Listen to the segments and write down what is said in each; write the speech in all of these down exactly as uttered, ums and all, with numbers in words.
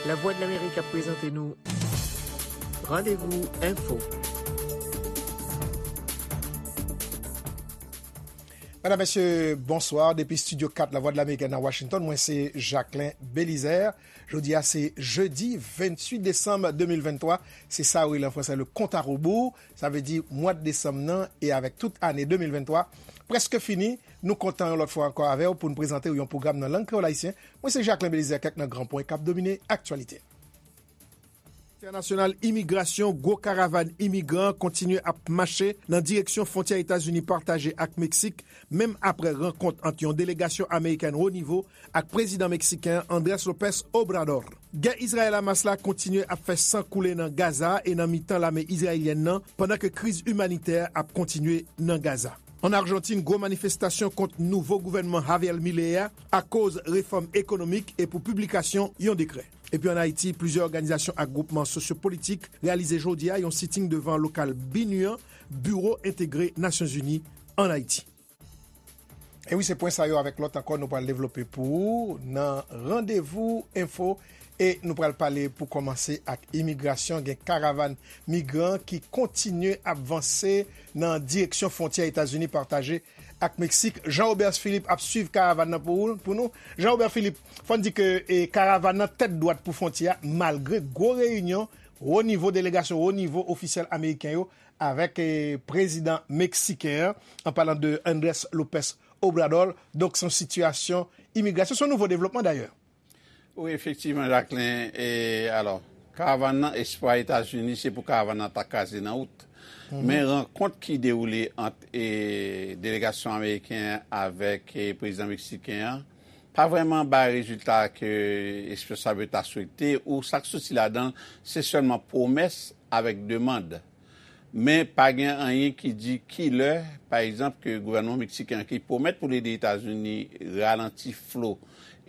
Lavwadlamerik ap prezante nou Randevou Enfo. Medam, mesye, bonswa. Depi Estidyo kat Lavwadlamerik nan Washington, mwen se Jacquelin Belizaire. Jodi a se jedi venntuit desanm de mil venntwa. Se sa yo rele an fransè le compte à rebours. Sa vle di mwa desanm nan e avèk tout ane de mil venntwa prèske fini. Nou kontan yon lòt fwa ankò avè w pou n prezante w yon pwogram nan lang kreyòl ayisyen. Mwen se Jacquelin Belizaire, kèk nan gran pwen k ap domine aktyalite. Entènasyonal imigrasyon, gwo karavàn imigran kontinye ap mache nan direksyon fwontyè Etazini pataje ak Meksik, menm aprè rankont ant yon delegasyon amerikèn wo nivo ak prezidan meksiken an, Andrés López Obrador. Gè Izrayèl-Hamas la kontinye ap fè san koule nan Gaza e nan mitan lame izrayelyèn nan, pandan ke kriz imanitè ap kontinye nan Gaza. An Ajantin, gwo manifestasyon kont nouvo gouvènman Javier Milei a akoz refòm ekonomik e pou piblikasyon yon dekrè. Epi ann Ayiti, plizyè òganizasyon ak gwoupman sosyopolitik reyalize jodi a yon siting devan lokal BINUH an, Biwo Entegre Nasyonzini ann Ayiti. E wi, se pwen sa yo avèk lòt ankò nou pral devlope pou ou nan Randevou Enfo. E nou pral pale pou kòmanse ak imigrasyon. Gen karavàn migran ki kontinye ap vanse nan direksyon fwontyè Etazini pataje ak Meksik. Jean Robert Philippe ap swiv karavàn nan pou, ou- pou nou. Jean Robert Philippe, fò n di ke e, karavàn nan tèt dwat pou fwontyè a, malgre gwo reyinyon wo nivo, delegasyon wo nivo ofisyèl ameriken yo avèk e, prezidan meksiken an, an palan de Andrés López Obrador. Donk, se yon sitiyasyon imigrasyon, se yon nouvo devlopman dayè. Wi, efektivman, Jacquelin. E, alò, karavàn nan, espwa Etazini, se pou karavàn nan ta kraze nan wout. Men rankont ki dewoule ant e, delegasyon ameriken an avèk e, prezidan meksiken an, pa vrèman bay rezilta ke espwa sa yo ta swete, ou sa k soti ladan l, se sèlman pwomès avèk demann. Men pa gen anyen ki di ki lè, pa egzanp, ke gouvènman meksiken an ki pwomèt pou l ede Etazini ralanti flo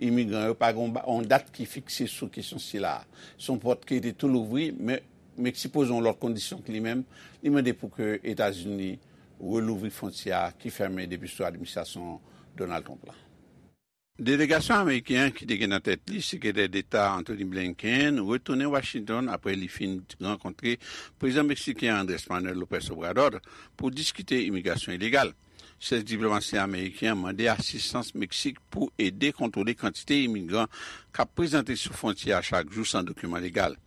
imigran yo, pa gen yon ba- yon dat ki fikse sou kesyon sila a. Se yon pòt ki rete tou louvri, men Meksik poze yon lòt kondisyon ke li menm, li mande pou ke Etazini relouvri fwontyè a ki fèmen depi sou administrasyon Donald Trump la. Delegasyon ameriken an ki te gen nan tèt li Sekretè Deta Antony Blinken retounen Washington apre li fin rankontre prezidan meksiken Andrés Manuel López Obrador pou diskite imigrasyon ilegal. Chèf diplomasi ameriken an mande asistans Meksik pou ede kontwole kantite imigran k ap prezante sou fwontyè a chak jou san dokiman legal.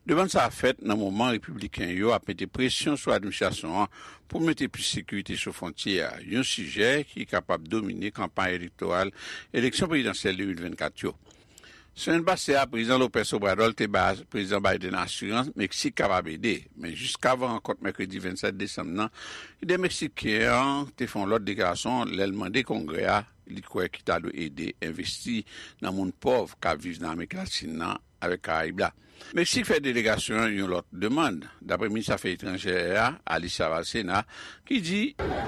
Demann sa a fèt nan moman repibliken yo ap mete presyon sou administrasyon an pou mete plis sekirite sou fwontyè a, yon sijè ki kapab domine kanpay elektoral eleksyon prezidansyèl de mil vennkat yo. Semèn pase a, Prezidan López Obrador te bay Prezidan Biden asirans Meksik kapab ede, men jiskavan rankont mèkredi vennsèt desanm nan, lidè meksiken an te fè yon lòt deklarasyon lè l mande Kongrè a li kwè ki ta dwe ede envesti nan moun pòv k ap viv nan Amerik Latin nan avèk Karayib la. Meksik fè delegasyon an yon lòt demann. Dapre minis afè etranjè a, Alicia Bárcena, ki di,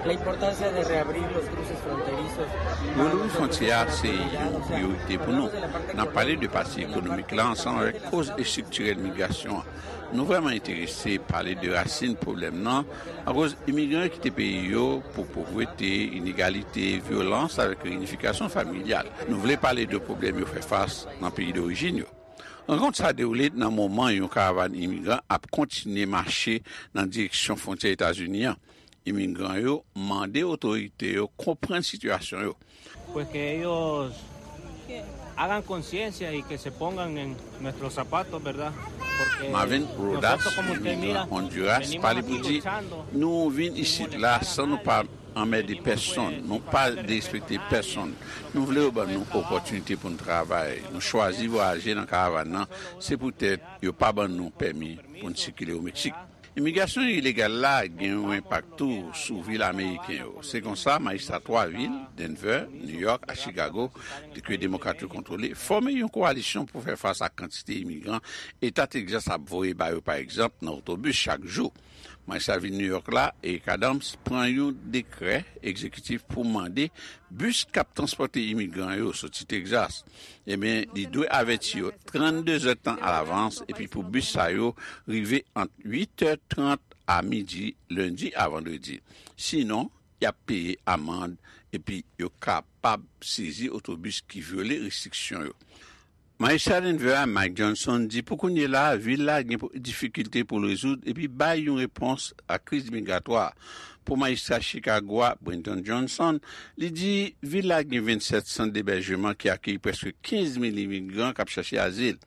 La importancia de reabrir los cruces fronterizos. Relouvri fwontyè a se yon priyorite pou nou. N ap pale de pati ekonomik la ansanm avèk koz estriktirèl migrasyon an. Nou vrèman enterese pale de rasin pwoblèm nan, akoz imigran yo kite peyi yo pou povrete, inegalite, vyolans avèk reyinifikasyon familyal. Nou vle pale de pwoblèm yo fè fas nan peyi dorijin yo. Rankont sa a dewoule nan moman yon karavàn imigran ap kontinye mache nan direksyon fwontyè Etazini an. Imigran yo mande otorite yo konprann sitiyasyon yo. Pues que ellos hagan conciencia y que se pongan en nuestros zapatos, ¿verdad? Porque Marvin Rodas, nosotros, como usted imigran mira, Honduras, venimos pale aquí pou di, luchando, nou vin isit la san nou pa anmède pèsonn, nou pa derespekte pèsonn. Nou vle yo ban nou opòtinite pou n travay. Nou chwazi vwayaje nan karavàn nan, se poutèt yo pa ban nou pèmi pou n sikile o Meksik. Imigrasyon ilegal la gen yon enpak tou sou vil ameriken yo. Se konsa, majistra twa vil, Denver, New York ak Chicago, ke demokrat yo kontwole, fòme yon kowalisyon pou fè fas ak kantite imigran Eta Texas ap voye ba yo, pa egzanp, nan otobis chak jou. Majistra vil New York la, Eric Adams, pran yon dekrè egzekitif pou mande bis k ap transpòte imigran yo soti Texas, ebyen, li dwe avèti yo trannde zèdtan alavans, epi pou bis sa yo rive ant uit è trant a midi, lendi a vandredi. Sinon, y ap peye amann, epi yo kapab sezi otobis ki vyole restriksyon yo. Majistra Denver a, Mike Johnson, di pou kounye la a, vil la gen difikilte pou l rezoud epi bay yon repons a kriz migratwa. Pou majistra Chicago a, Brenton Johnson, li di vil la gen vennsèt sant debèjman ki akeyi prèske kenz mil imigran k ap chache azil.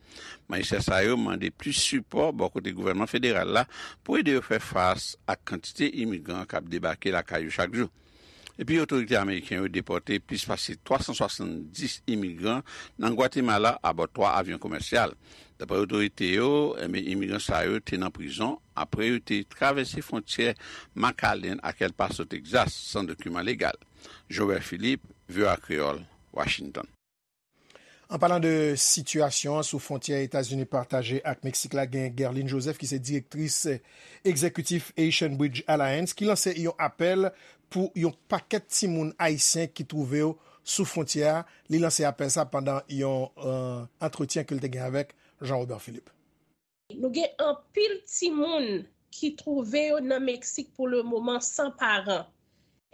Majistra sa yo mande plis sipò bò kote gouvènman federal la pou ede yo fè fas ak kantite imigran k ap debake lakay yo chak jou. Epi otorite ameriken yo depòte plis pase twa san swasanndis imigran nan Gwatemala abò twa avyon komèsyal. Dapre otorite yo, enben, imigran sa yo te nan prizon apre yo te travèse fwontyè McAllen ak El Paso, Texas, san dokiman legal. Joel Philippe, V O A Kreyòl, Washington. An palan de sitiyasyon an sou fwontyè Etazini pataje ak Meksik la, gen Guerline Joseph ki se direktris egzekitif Haitian Bridge Alliance ki lanse yon apèl pou yon pakèt timoun ayisyen ki twouve yo sou fwontyè a. Li lanse apèl sa pandan yon euh, antretyen ke l te gen avèk Jean Robert Philippe. Nou gen anpil timoun ki twouve yo nan Meksik pou le moman san paran.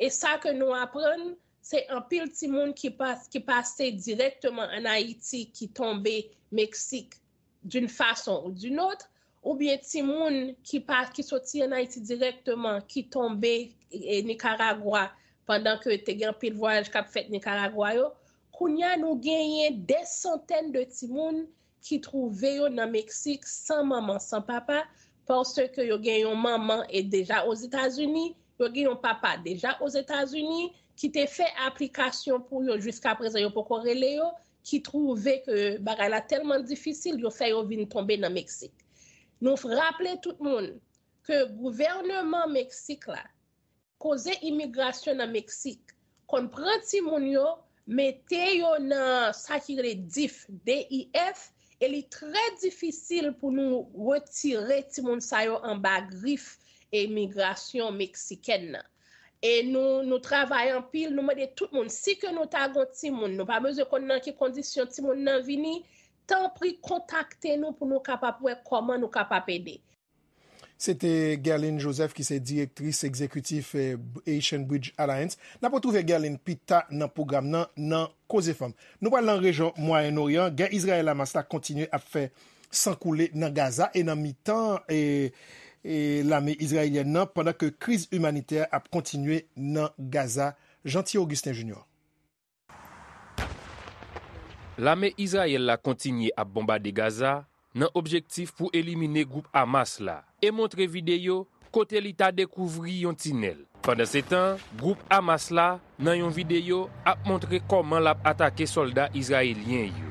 E sa ke nou aprann, se anpil timoun ki, pas, ki pase dirèkteman ann Ayiti ki tonbe Meksik d'une façon ou d'une autre, oubyen timoun ki, pa, ki soti ann Ayiti dirèkteman ki tonbe e, Nikaragwa pandan ke te gen anpil vwayaj k ap fèt Nikaragwa yo. Kounye a, nou genyen dè santèn de timoun ki twouve yo nan Meksik san manman, san papa, paske yo gen yon manman e deja Ozetazini, yo gen yon papa deja Ozetazini ki te fè aplikasyon pou yo, jiskaprezan yo poko rele yo, ki twouve ke bagay la tèlman difisil, yo fè yo vin tonbe nan Meksik. Nou raple tout moun ke gouvènman Meksik la, koze imigrasyon nan Meksik, konn pran timoun yo, mete yo nan sa ki rele dif, D I F, e li trè difisil pou nou retire timoun sa yo anba grif imigrasyon meksikèn nan. E nou, nou travay anpil, nou mande tout moun, si ke nou ta gon timoun, nou pa bezwen konn nan ki kondisyon timoun nan vini, tanpri kontakte nou pou nou kapab wè kòman nou kapab ede. Se te Guerline Joseph ki se direktris egzekitif Haitian Bridge Alliance. N ap retwouve Guerline pita nan pwogram nan nan Koze Fanm. Nou pral nan rejyon Mwayen Oryan. Gè Izrayèl Hamas la kontinye ap fè san koule nan Gaza e nan mitan e, e lame izrayelyèn nan pandan ke kriz imanitè ap kontinye nan Gaza. Jeanty Augustin Junior. Lame Izrayèl la kontinye ap bonbade Gaza nan objektif pou elimine gwoup Hamas la e montre videyo kote li ta dekouvri yon tinèl. Pandansetan, gwoup Hamas la, nan yon videyo, ap montre kòman l ap atake sòlda izrayelyen yo.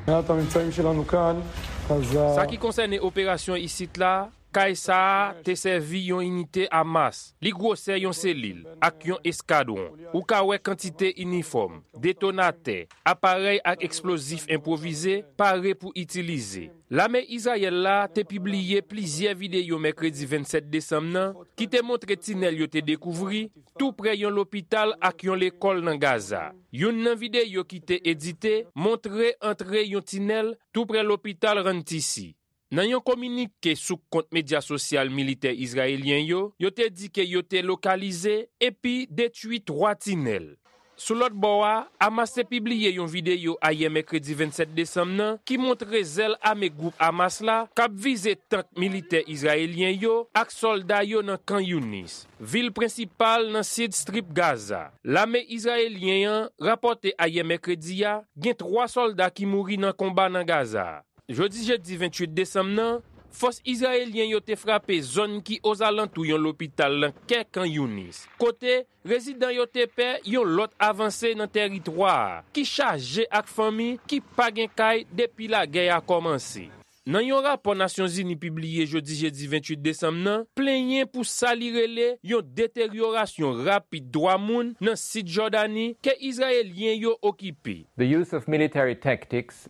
Sa ki konsène operasyon isit la, Kay sa a te sèvi yon inite Hamas, li gwosè yon selil, ak yon eskadwon. Ou ka wè kantite inifòm, detonatè, aparèy ak eksplozif enpwovize pare pou itilize. Lame Izrayèl la te pibliye plizyè videyo mèkredi vennsèt desanm nan ki te montre tinèl yo te dekouvri tou prè yon lopital ak yon lekòl nan Gaza. Youn nan videyo ki te edite montre antre yon tinèl tou prè lopital Rantisi. Nan yon kominike sou kont medya sosyal militè izrayelyen yo, yo te di ke yo te lokalize epi detwi twa tinèl. Sou lòt bò a, Hamas te pibliye yon videyo ayè mèkredi vennsèt desanm nan ki montre zèl ame gwoup Hamas la k ap vize tank militè izrayelyen yo ak sòlda yo nan Khan Younis, vil prensipal nan sid Strip Gaza. Lame izrayelyen an rapòte ayè mèkredi a gen twa sòlda ki mouri nan konba nan Gaza a. Jodi jedi venntuit desanm nan, fòs izrayelyen yo te frape zòn ki ozalantou yon lopital nan kè Khan Younis, kote rezidan yo te pè yon lòt avanse nan tèritwa a ki chaje ak fanmi ki pa gen kay depi lagè a kòmanse. Nan yon rapò Nasyonzini pibliye jodi jedi venntuit desanm nan, plenyen pou sa li rele yon deteryorasyon rapid dwa moun nan sid Jòdani ke Izrayelyen yo okipe.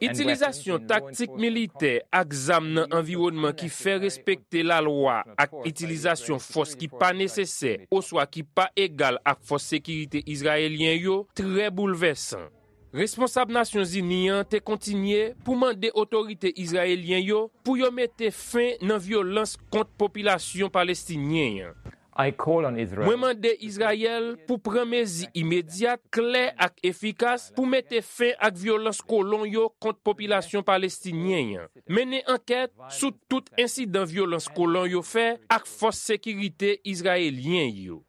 Itilizasyon taktik militè ak zam nan anviwònman ki fè respekte lalwa ak itilizasyon fòs ki pa nesesè oswa ki pa egal ak fòs sekirite izrayelyen yo trè boulvèsan. Responsab Nasyonzini an te kontinye pou mande otorite izrayelyen yo pou yo mete fen nan vyolans kont popilasyon palestinyen an. I call on Israel. Mwen mande Izrayèl pou pran mezi imedyat, klè ak efikas pou mete fen ak vyolans kolon yo kont popilasyon palestinyen an. Mennen ankèt sou tout ensidan vyolans kolon yo fè ak fòs sekirite izrayelyen yo.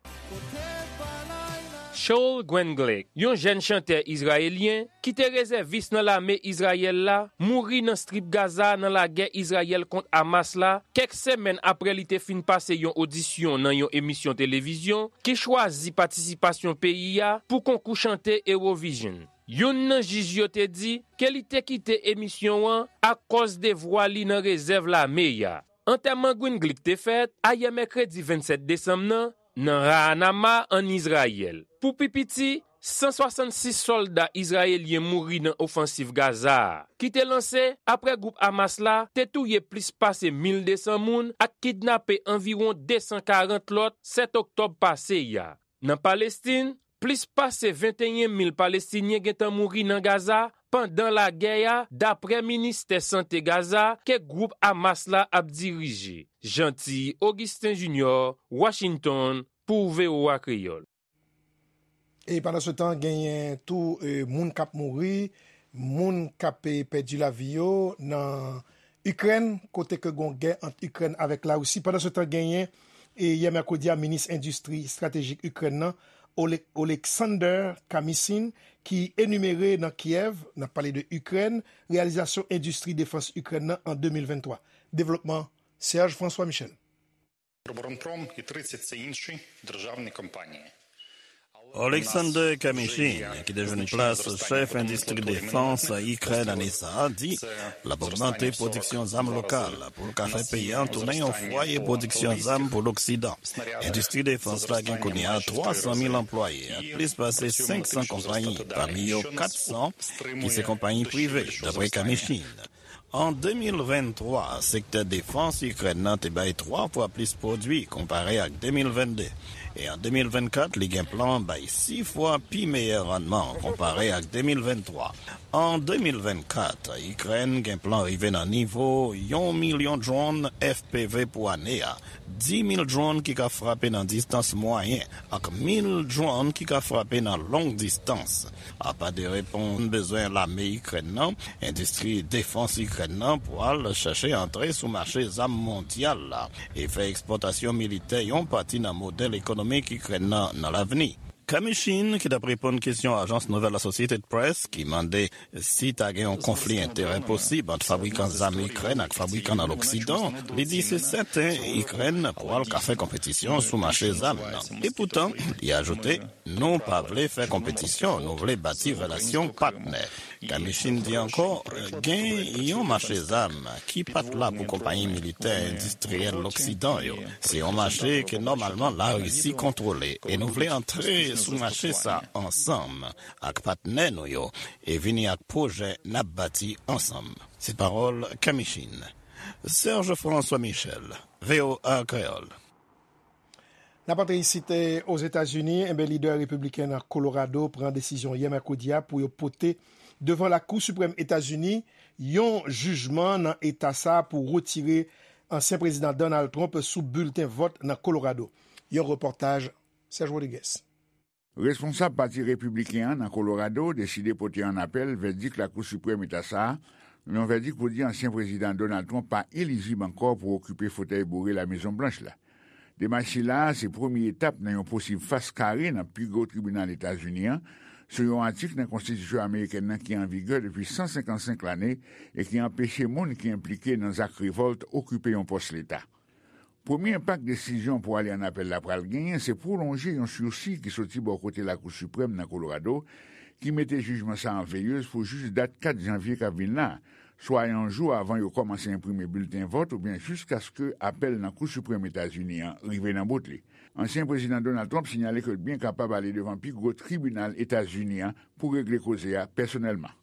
Shaul Gwenglik, yon jèn chantè izrayelyen ki te rezèvis nan lame Izrayèl la, mouri nan Strip Gaza nan lagè Izrayèl kont Hamas la, kèk semèn apre li te fin pase yon odisyon nan yon emisyon televizyon ki chwazi patisipasyon peyi a pou konkou chante Eurovision. Youn nan jij yo te di ke li te kite emisyon an akòz devwa li nan rezèv lame a. Antèman Gwenglik te fèt ayè mèkredi vennsèt desanm nan, nan Ra'anama, ann Izrayèl. Pou pi piti, san swasannsis sòlda izrayelyen mouri nan ofansiv Gaza a, ki te lanse apre gwoup Hamas la te touye plis pase mil desan moun ak kidnape anviwon desan karant lòt sèt oktòb pase a. Nan Palestin, plis pase venteyen mil Palestinyen gentan mouri nan Gaza pandan lagè a, dapre Ministè Sante Gaza ke gwoup Hamas la ap dirije. Jeanty Augustin Junior, Washington, pou V O A Kreyòl. E pandan se tan, genyen tou e, moun k ap mouri, moun k ap e, pèdi lavi yo nan Ikrèn, kote ke gon gè ant Ikrèn avèk Larisi. Pandan se tan, genyen e, yè mèkredi a, minis endistri estratejik Ikrèn nan, Ole- Oleksandr Kamyshin, ki enimere nan Kyèv, n ap pale de Ikrèn, reyalizasyon endistri defans Ikrèn nan an de mil venntwa. Devlopman, Serge François Michel. Роборонпром і тридцять це інші державні компанії. Oleksandr Kamyshin, ki te jwenn plas chèf endistri defans Ikrèn ane sa a, di l ap ogmante pwodiksyon zam lokal pou l ka fè peyi a tounen yon fwaye pwodiksyon zam pou Loksidan. Endistri defans la gen kounye a twa san mil anplwaye ak plis pase senk san konpayi, pami yo kat san ki se konpayi prive, dapre Kamyshin. An de mil venntwa, sektè defans Ikrèn nan te bay twa fwa plis pwodui konpare ak de mil vennde, e an de mil vennkat, li gen plan bay sis fwa pi meyè rannman konpare ak de mil venntwa. An de mil vennkat, Ikrèn gen plan rive nan nivo yon milyon dwòn F P V pou ane a, di mil dwòn ki ka frape nan distans mwayen ak mil dwòn ki ka frape nan long distans. Apa de reponn bezwen lame Ikrèn nan, endistri defans Ikrèn nan pral chèche antre sou mache zam mondyal la e fè ekspòtasyon militè yon pati nan modèl ekonomik Ikrèn nan nan lavni. Kamyshin, ki t ap reponn kesyon ajans nouvèl Associated Press ki mande si ta gen yon konfli enterè posib ant fabrikan zam Ikrèn ak fabrikan nan Loksidan, li di se sèten Ikrèn pral ka fè konpetisyon sou mache zam nan. Epoutan, li ajoute, nou pa vle fè konpetisyon, nou vle bati relasyon patnè. Kamyshin di ankò, gen yon mache zam ki pa t la pou konpayi militè endistriyèl Loksidan yo. Se yon mache ke nòmalman Larisi kontwole e nou vle antre sou mache sa ansanm ak patnè nou yo e vini ak pwojè n ap bati ansanm. Se pawòl Kamyshin. Serge François Michel, V O A Kreyòl. N ap antre isit Ozetazini, enben lidè repibliken nan Kolorado pran desizyon yè mèkredi a pou yo pote devan Lakou Siprèm Etazini yon jijman nan eta sa a pou retire ansyen prezidan Donald Trump sou bilten vòt nan Kolorado. Yon repòtaj Serge Rodriguez. Responsab Pati Repibliken an nan Kolorado deside pote an apèl vèdik Lakou Siprèm Eta sa a, yon vèdik pou di ansyen Prezidan Donald Trump pa elijib ankò pou okipe fotèy boure Lamezon Blanch la. Demach sila a se premye etap nan yon posib fas kare nan pi gwo tribinal Etazini an sou yon atik nan konstitisyon amerikèn nan ki an vigè depi san senkannsenk lane e ki anpeche moun ki enplike nan zak revòlt okipe yon pòs leta. Premye enpak desizyon pou ale an apèl la pral genyen se pwolonje yon sisi ki soti bò kote Lakou Siprèm nan Kolorado ki mete jijman sa an veyez pou jis dat kat janvye k ap vin la a, swa yon jou avan yo kòmanse enprime bilten vòt oubyen jiskaske apèl nan Kou Siprèm Etazini an rive nan bout li. Ansyen Prezidan Donald Trump sinyale ke l byen kapab ale devan pi gwo tribinal Etazini an pou regle koze a pèsonèlman.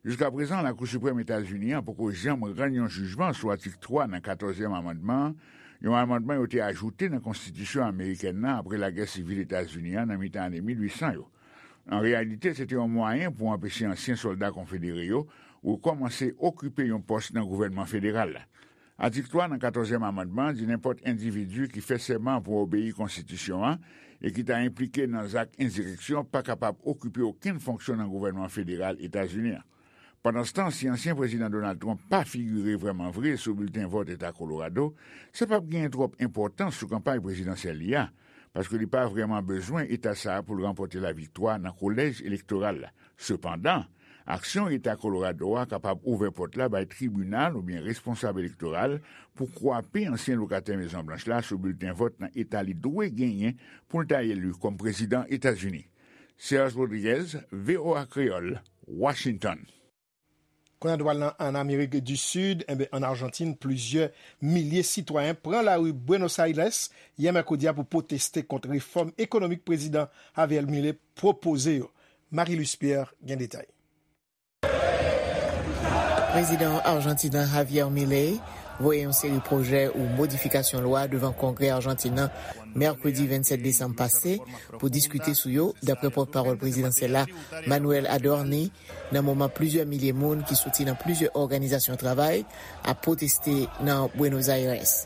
Jiskaprezan, Lakou Siprèm Etazini an poko janm rann yon jijman sou atik twa nan katòzyèm amandman an, yon amandman yo te ajoute nan konstitisyon amerikèn nan apre lagè sivil Etazini an nan mitan ane mil uit san yo. An reyalite, se te yon mwayen pou anpeche ansyen sòlda konfedere yo rekòmanse okipe yon pòs nan gouvènman federal la. Atik twa nan katòzyèm amandman di nenpòt endividi ki fè sèman pou obeyi konstitisyon an e ki ta enplike nan zak ensireksyon pa kapab okipe okenn fonksyon nan gouvènman federal Etazini an. Pandanstan, si ansyen prezidan Donald Trump pa figire vrèman vre sou bilten vòt Eta Kolorado, sa p ap genyen twòp enpòtans sou kanpay prezidansyèl li a, paske li pa vrèman bezwen eta sa a pou l ranpòte laviktwa nan kolèj elektoral la. Sepandan, aksyon Eta Kolorado a kapab ouvè pòt la bay tribinal oubyen responsab elektoral pou kwape ansyen lokatè Mezon Blanch la sou bilten vòt nan eta li dwe genyen pou l ta eli kòm prezidan Etazini. Serge Rodriguez, V O A Kreyòl, Washington. Kounye a nou pral nan, ann Amerik di Sid, enben, ann Ajantin, plizyè milye sitwayen pran lari Buenos Aires yè mèkredi a pou pwoteste kont refòm ekonomik prezidan Javier Milei pwopoze yo. Marie Luce Pierre gen detay. Prezidan Ajantin an Javier Milei voye yon seri pwojè ou modifikasyon lwa devan Kongrè Ajantin nan mèkredi vennsèt desanm pase pou diskite sou yo, dapre pòtpawòl prezidansyèl la, Manuel Adorni, nan moman plizyè milye moun ki soti nan plizyè òganizasyon travay ap pwoteste nan Buenos Aires.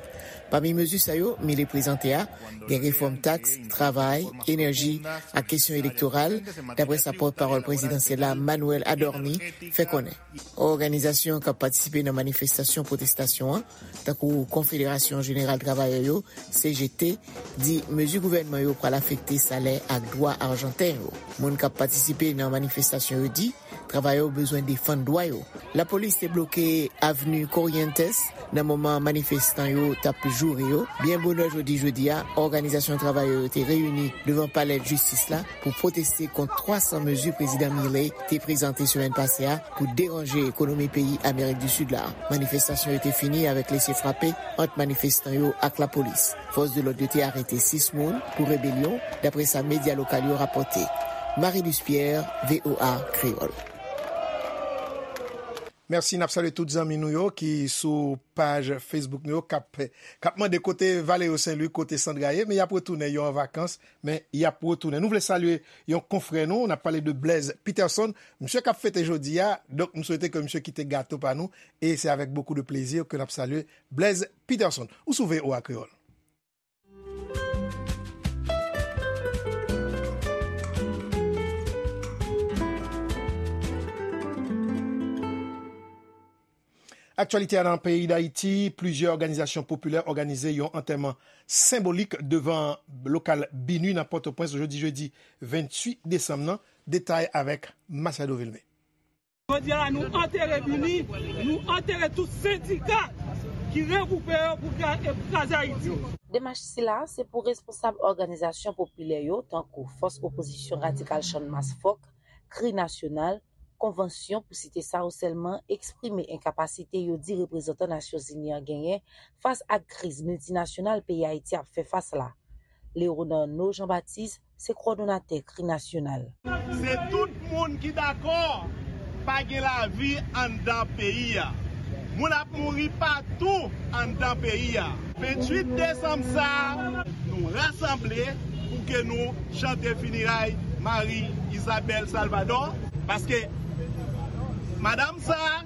Pami mezi sa yo Milei prezante a, gen refòm taks, travay, enèji ak kesyon elektoral, dapre sa pòtpawòl prezidansyèl la, Manuel Adorni, fè konnen. Òganizasyon k ap patisipe nan manifestasyon pwotestasyon an, tankou Konfederasyon Jeneral Travayè yo, C G T, di mezi gouvènman yo pral afekte salè ak dwa Ajanten yo. Moun k ap patisipe nan manifestasyon yo di travayè yo bezwen defann dwa yo. Lapolis te bloke avni Corrientes nan moman manifestan yo t ap joure yo. Byen bonè jodi jedi a, òganizasyon travayè yo te reyini devan palè jistis la pou pwoteste kont twa san mezi prezidan Milei te prezante semèn pase a pou deranje ekonomi peyi Amerik di Sid la. Manifestasyon yo te fini avèk lese frape ant manifestan yo ak lapolis. Fòs de lòd yo te arete sis moun pou rebelyon, dapre sa medya lokal yo rapòte. Marie Luce Pierre, V O A Kreyòl. Mèsi, n ap salye tout zanmi nou yo ki sou paj Facebook nou yo k ap, k ap mande kote Valerio Saint Louis, kote Sandra ye, men y ap retounen, yo an vakans, men y ap retounen. Nou vle salye yon konfrè nou, n ap pale de Blaise Peterson, misye k ap fete jodi a, donk m swete ke misye kite gato pa nou, e se avèk bokou de plezi ke n ap salye Blaise Peterson. Ou sou V O A Kreyòl. Aktyalite a nan peyi Dayiti, plizyè òganizasyon popilè òganize yon antèman senbolik devan lokal BINUH nan Pòtoprens jodi jedi venntuit desanm nan. Detay avèk Machado Vilmé. Jodi a la, nou antere BINUH, nou antere tout sendika ki regwoupe yo pou kraze Ayiti. Demach sila se pou responsab òganizasyon popilè yo, tankou Fòs Opozisyon Radikal Channmas Fòk, Kri Nasyonal, Konvansyon, pou site sa yo sèlman, eksprime enkapasite yo di reprezantan Nasyonzini an genyen fas ak kriz miltinasyonal peyi Ayiti ap fè fas la. Léonarno Jean Baptiste se kowòdonatè Kri Nasyonal. Se tout moun ki dakò pa gen lavi anndan peyi a. Moun ap mouri patou anndan peyi a. Venntuit desanm sa a, nou rasanble pou ke nou chante fineray Marie Isabelle Salvador, paske madanm sa a,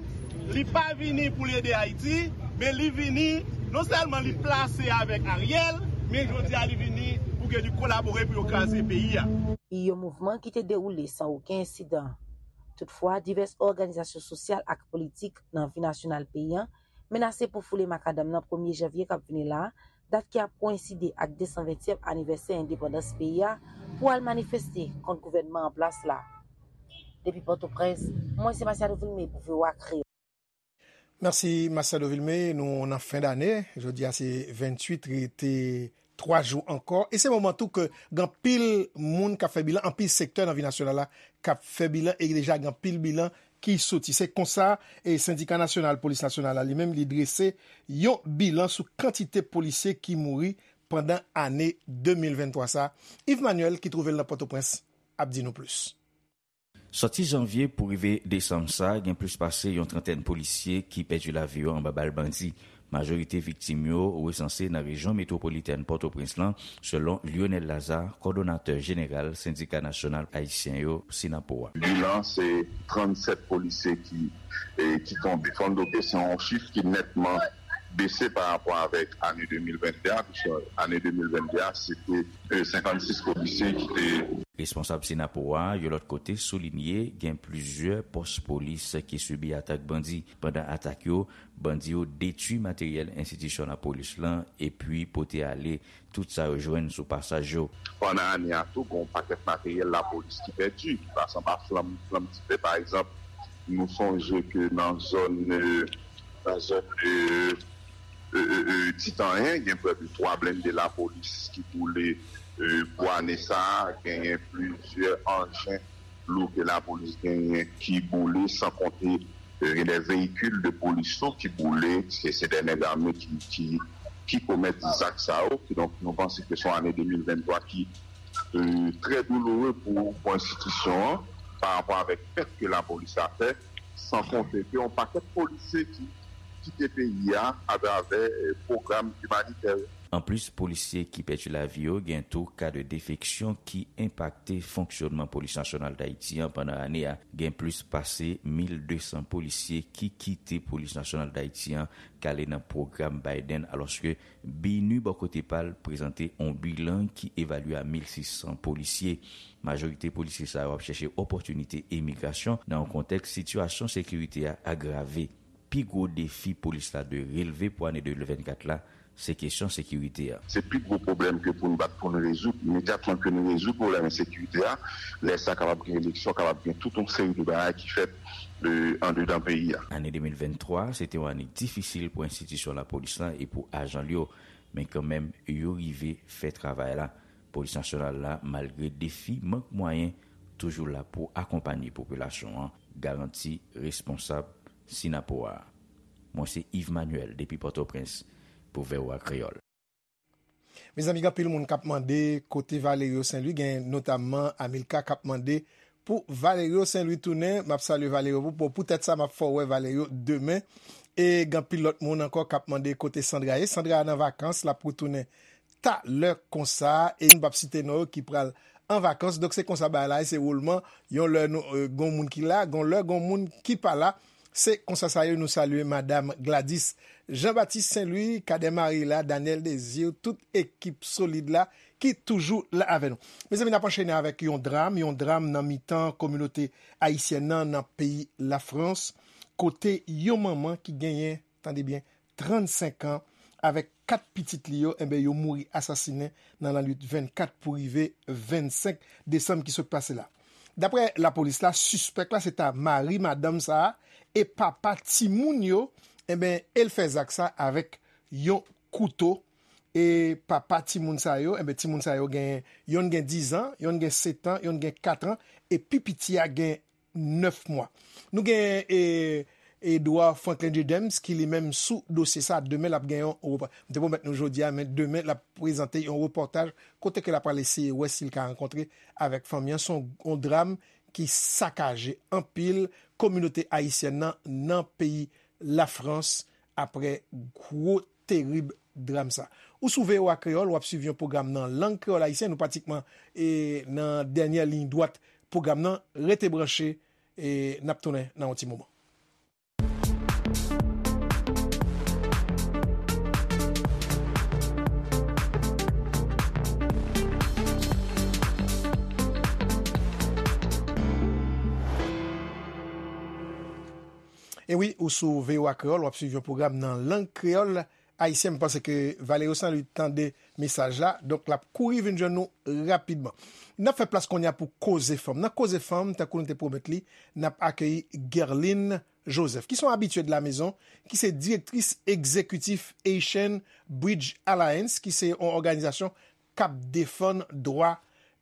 li pa vini pou l ede Ayiti, men li vini, non sèlman li plase avèk Ariel, men jodi a li vini pou ke li kolabore pou yo kraze peyi a. Yon mouvman ki te dewoule san okenn ensidan. Toutfwa, divès òganizasyon sosyal ak politik nan vi nasyonal peyi a menase pou foule makadam nan premye janvye k ap vini la, dat ki ap koyenside ak desanventyèm anivèsè endepandans peyi a, pou al manifeste kont gouvènman an plas la. Depi Pòtoprens, mwen se Masiado Vilme pou V O A Kreyòl. Mèsi Masiado Vilme, nou nan fen dane, jodi a se venntuit, rete twa jou ankò, e se moman tou ke gen anpil moun k ap fè bilan, anpil sektè nan vi nasyonal la k ap fè bilan, e deja gen anpil bilan ki soti. Se konsa, e Sendika Nasyonal Polis Nasyonal la li menm, li drese yon bilan sou kantite polisye ki mouri pandan ane de mil venntwa sa. Yves Manuel, ki twouve l nan Pòtoprens, ap di nou plis. Sòti janvye pou rive desanm sa, gen plis pase yon trantèn polisye ki pèdi lavi yo anba bal bandi. Majorite viktim yo resanse nan rejyon metwopolitèn Pòtoprens lan, selon Lionel Lazarre, kòdonatè jeneral Sendika Nasyonal Ayisyen yo, Synapoha. Bilan se trannsèt polisye ki, e, ki tonbe. Fò n note se yon chif ki nètman bese pa rapò avèk ane de mil venn de a, piske ane de mil venn de a, se te, e, senkannsis polisye ki te. Responsab Synapoha a, yon lòt kote, soulinye gen plizyè pòs polis ki sibi atak bandi. Pandan atak yo, bandi yo detwi materyèl enstitisyon lapolis lan epi pote ale tout sa yo jwenn sou pasaj yo. Pandan ane a tou, gen yon pakèt materyèl lapolis ki pèdi, ki pase anba flanm, flanm dife. Pa egzanp, nou sonje ke nan zòn, e, nan zòn, e, e, e, e, Titanyen, gen prè de twa blende lapolis ki boule, e, pou ane sa a. Genyen plizyè anjen lou ke lapolis genyen ki boule, san konte, e, gen de veyikil de polis tou ki boule, se, se de nèg ame ki, ki, ki komèt zak sa yo. Kidonk, nou panse ke se yon ane de mil venntwa ki, e, trè douloure pou, pou enstitisyon an, pa rapò avèk pèt ke lapolis la fè, san konte ke yon pakèt polisye ki kite peyi a atravè, e, pwogram imanitè yo. Anplis polisye ki pèdi lavi yo, gen tou ka de defeksyon ki enpakte fonksyònman Polis Nasyonal Dayiti an pandan ane a. Gen plis pase mil de san polisye ki kite Polis Nasyonal Dayiti an k ale nan pwogram Biden, alòske BINUH bò kote pa l prezante yon bilan ki evalye a mil sis san polisye. Majorite polisye sa yo ap chèche opòtinite emigrasyon nan yon kontèks sitiyasyon sekirite a agrave. Pi gwo defi polis la dwe relve pou ane de mil vennkat la, se kesyon sekirite a. Se pi gwo pwoblèm ke pou n bat pou n rezoud. Imedyatman ke nou rezoud pwoblèm ensekirite a, lè sa kapab gen eleksyon, kapab gen tout yon seri de bagay ki fèt, e, andedan peyi a. Ane de mil venntwa, se te yon ane difisil pou enstitisyon lapolis la e pou ajan l yo, men kanmenm, yo rive fè travay la. Polis Nasyonal la, malgre defi mank mwayen, toujou la pou akonpanye popilasyon an, garanti responsab Synapoha a. Mwen se Yves Manuel depi Pòtoprens pou V O A Kreyòl. Mezanmi, gen anpil moun k ap mande kote Valerio Saint Louis, gen notamman Amilcar k ap mande pou Valerio Saint Louis tounen. M ap salye Valerio pou, pou, poutèt sa, m ap fè w wè Valerio demen. E gen anpil lòt moun ankò k ap mande kote Sandra ye. Sandra nan vakans, l ap retounen talè konsa, e nou p ap site non yo ki pral an vakans. Donk, se konsa bagay la ye, se woulman. Yon lè nou, e, gon moun ki la, gon lè gon moun ki pa la. Se konsa sa ye, nou salye Madam Gladys Jean Baptiste Saint Louis, Cadet Marie la, Daniel Désir, tout ekip solid la ki toujou la avè nou. Mezanmi, n ap anchene avèk yon dram, yon dram nan mitan kominote ayisyèn nan, nan peyi Lafrans, kote yon manman ki genyen, tande byen, trannsenk an, avèk kat pitit li yo, enben, yo mouri asasinen nan lannwit vennkat pou rive vennsenk desanm ki sot pase la. Daprè lapolis la, sispèk la se ta mari madanm sa a e papa timoun yo, enben, e l fè zak sa avèk yon kouto. E papa timoun sa yo, enben, timoun sa yo gen, yonn gen diz an, yonn gen sèt an, yonn gen kat an, e pi piti a gen nèf mwa. Nou gen, e, Edouard Franklin J. James ki li menm sou dosye sa. Demen l ap gen yon repò-, m te pwomèt nou jodi a, men demen l ap prezante yon repòtaj kote ke l ap pral eseye wè si l ka rankontre avèk fanmi an. Se yon, yon dram ki sakaje anpil kominote ayisyèn nan, nan peyi Lafrans, aprè gwo terib dram sa. Ou sou V O A Kreyòl, w ap swiv yon pwogram nan lang kreyòl ayisyen. Nou pratikman, e, nan dènyè liy dwat pwogram nan. Rete branche, e n ap tounen nan yon ti moman. E wi, ou sou V O A Kreyòl, w ap swiv yon pwogram nan lang kreyòl ayisyen. M panse ke Valerio Saint Louis tande mesaj la, donk l ap kouri vin jwenn nou rapidman. N ap fè plas kounye a pou Koze Fanm. Nan Koze Fanm, tankou nou te pwomèt li, n ap akeyi Guerline Joseph, ki se yon abitye de la mezon, ki se direktris egzekitif Haitian Bridge Alliance, ki se yon òganizasyon k ap defann dwa,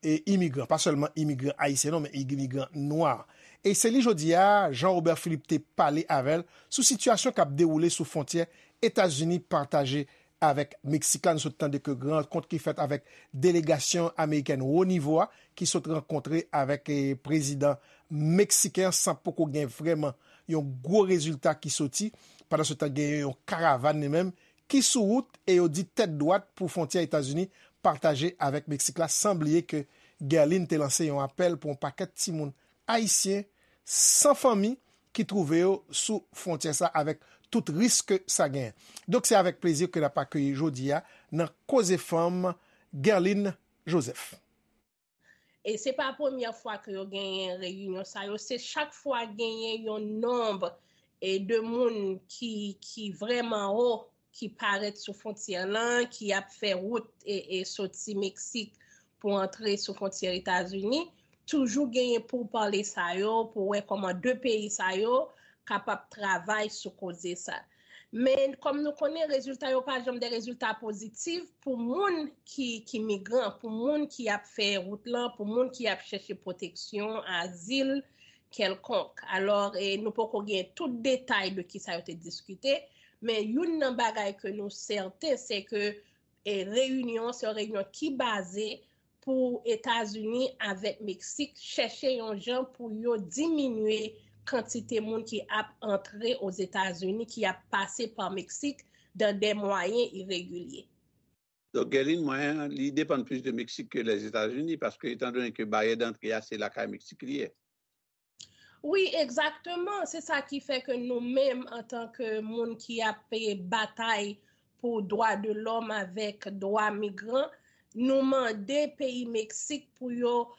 e, imigran, pa sèlman imigran ayisyen non, men imigran nwa. E se li jodi a, Jean Robert Philippe te pale avè l sou sitiyasyon k ap dewoule sou fwontyè Etazini pataje avèk Meksik la. Nou sot tande ke gen rankont ki fèt avèk delegasyon amerikèn wo nivo a, ki sot rankontre avèk, e, prezidan meksiken an, san poko gen vrèman yon gwo rezilta ki soti. Pandan se tan, gen yon karavàn li menm ki sou wout e yo di tèt dwat pou fwontyè Etazini pataje avèk Meksik la, san bliye ke Guerline te lanse yon apèl pou yon pakèt timoun ayisyen san fanmi ki twouve yo sou fwontyè sa avèk tout risk ke sa genyen. Donk, se avèk plezi ke n ap akeyi jodi a nan Koze Fanm, Guerline Joseph. E se pa premyè fwa ke yo genyen reyinyon sa yo, se chak fwa genyen yon nonb e de moun ki, ki vrèman wo, ki parèt sou fwontyè lan, ki ap fè wout e, e soti Meksik pou antre sou fwontyè Etazini, toujou genyen poupale sa yo, pou wè kòman de peyi sa yo kapab travay sou koze sa. Men, kòm nou konnen, rezilta yo pa janm de rezilta pozitif pou moun ki, ki migran, pou moun ki ap fè wout lan, pou moun ki ap chèche pwoteksyon, azil kèlkonk. Alò, e, nou poko gen tout detay de kisa yo te diskite, men youn nan bagay ke nou sèten, se ke, e, reyinyon, se yon reyinyon ki baze pou Etazini avèk Meksik chèche yon jan pou yo diminye kantite moun ki ap antre Ozetazini, ki ap pase pa Meksik dan de mwayen iregilye. Donk, Guerline, mwayen an, li depann plis de Meksik ke Lèzetazini, paske, etan done ke baryè dantre a, se lakay Meksik li ye. Wi, egzakteman. Se sa ki fè ke nou menm, antanke moun ki ap batay pou dwa de lòm avèk dwa migran, nou mande peyi Meksik pou yo,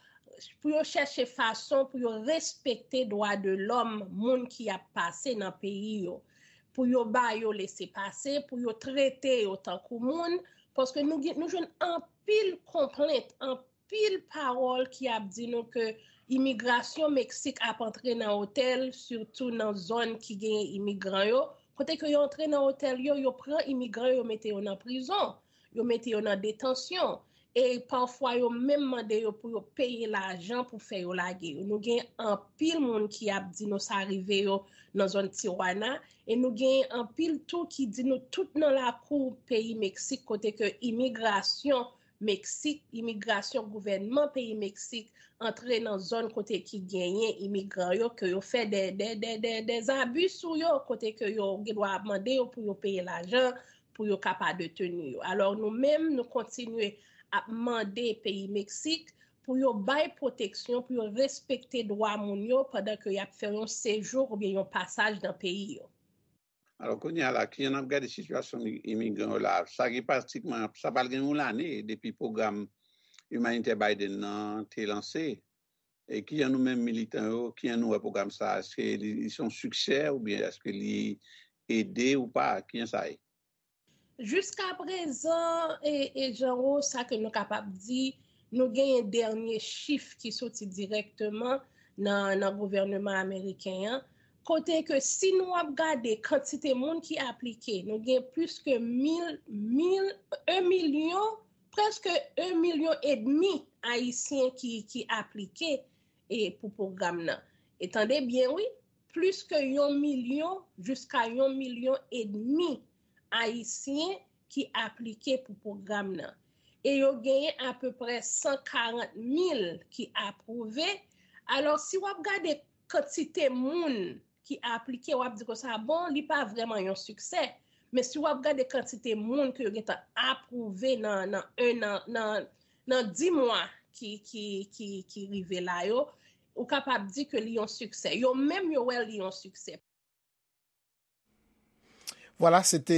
pou yo chèche fason pou yo respekte dwa de lòm moun ki ap pase nan peyi yo. Pou yo ba yo lese pase, pou yo trete yo tankou moun, paske nou, gen- nou jwenn anpil konplent, anpil pawòl ki ap di nou ke imigrasyon Meksik ap antre nan otèl, sitou nan zòn ki genyen imigran yo. Kote ke yo antre nan otèl yo, yo pran imigran yo, yo mete yo nan prizon, yo mete yo nan detansyon. E pafwa yo menm mande yo pou yo peye lajan pou fè yo lage yo. Nou gen anpil moun ki ap di nou sa rive yo nan zòn Tijuana. E nou gen anpil tou ki di nou tout nan lakou peyi Meksik kote ke imigrasyon Meksik, imigrasyon gouvènman peyi Meksik antre nan zòn kote ki genyen imigran yo, ke yo fè de, de, de, de, de zabi sou yo, kote ke yo gen dwa ap mande yo pou yo peye lajan pou yo kapab deteni yo. Alò nou menm, nou kontinye ap mande peyi Meksik pou yo bay pwoteksyon, pou yo respekte dwa moun yo pandan ke y ap fè yon sejou oubyen yon pasaj nan peyi yo. Alò, kounye a la, kijan n ap gade sitiyasyon mi- imigran yo la? Sa gen pratikman, sa pral gen yon lane depi pwogram imanitè Biden nan te lanse. E kijan nou menm militan yo, kijan nou wè pwogram sa a? Èske li, li se yon siksè oubyen èske li ede ou pa? Kijan sa ye? Jiska prezan, e, e Jean Rose, sa ke nou kapab di, nou genyen dènye chif ki soti dirèkteman nan, nan gouvèneman ameriken an, kote ke si nou ap gade kantite moun ki aplike, nou gen plis ke mil, mil, en milyon, prèske en milyon edmi Ayisyen ki, ki aplike e, pou pwogram nan. E tande byen, wi, plis ke yon milyon jiska yon milyon edmi Ayisyen ki aplike pou pwogram nan. E yo genyen apeprè san karant mil ki apwouve. Alò, si w ap gade kantite moun ki aplike, w ap di konsa, bon, li pa vrèman yon siksè. Men si w ap gade kantite moun ke yo gentan apwouve nan, nan en an, nan, nan dis mwa ki, ki, ki, ki rive la yo, ou kapab di ke li yon siksè. Yo menm yo wè li yon siksè. Vwala, se te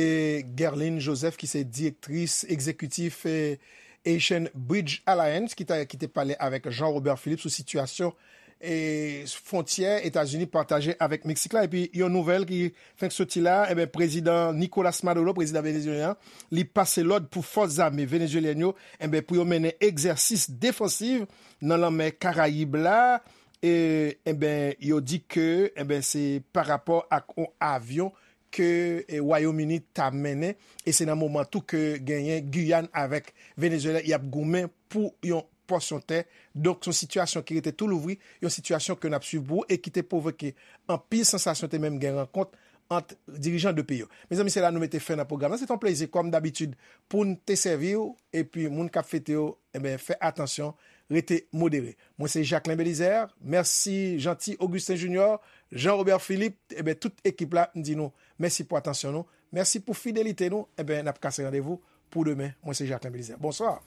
Guerline Joseph ki se direktris egzekitif eh, Haitian Bridge Alliance ki, ta, ki te pale avèk Jean Robert Philippe sou sitiyasyon eh, fwontyè Etazini pataje avèk Meksik la. Epi yon nouvèl ki fenk soti la, enben, prezidan Nicolas Maduro, prezidan venezuelyen, li pase lòd pou fòs zame venezuelyèn yo, enben, pou yo mennen egzèsis defansiv nan lanmè Karayib la. E, enben, yo di ke, enben, se pa rapò ak yon avyon ke eh, Wayòm Ini ta mennen, e se nan moman tou ke genyen Giyàn avèk Venezuela y ap goumen pou yon pòsyon tè. Donk, se yon sitiyasyon ki rete tou louvri, yon sitiyasyon ke n ap swiv pou ou e ki te pwovoke anpil sansasyon, te menm gen rankont ant dirijan de peyi yo. Mezanmi, se la nou mete fen nan pwogram nan. Se te yon plezi, kòm dabitid, pou n te sèvi w, epi moun k ap fete yo, enben, fè atansyon, rete modere. Mwen se Jacquelin Belizaire. Mèsi Jeanty Augustin Junior, Jean Robert Philippe, enben, tout ekip la, m di nou mèsi pou atansyon nou. Mèsi pou fidelite nou. Enben, n ap kase randevou pou demen. Mwen se Jacquelin Belizaire. Bonswa.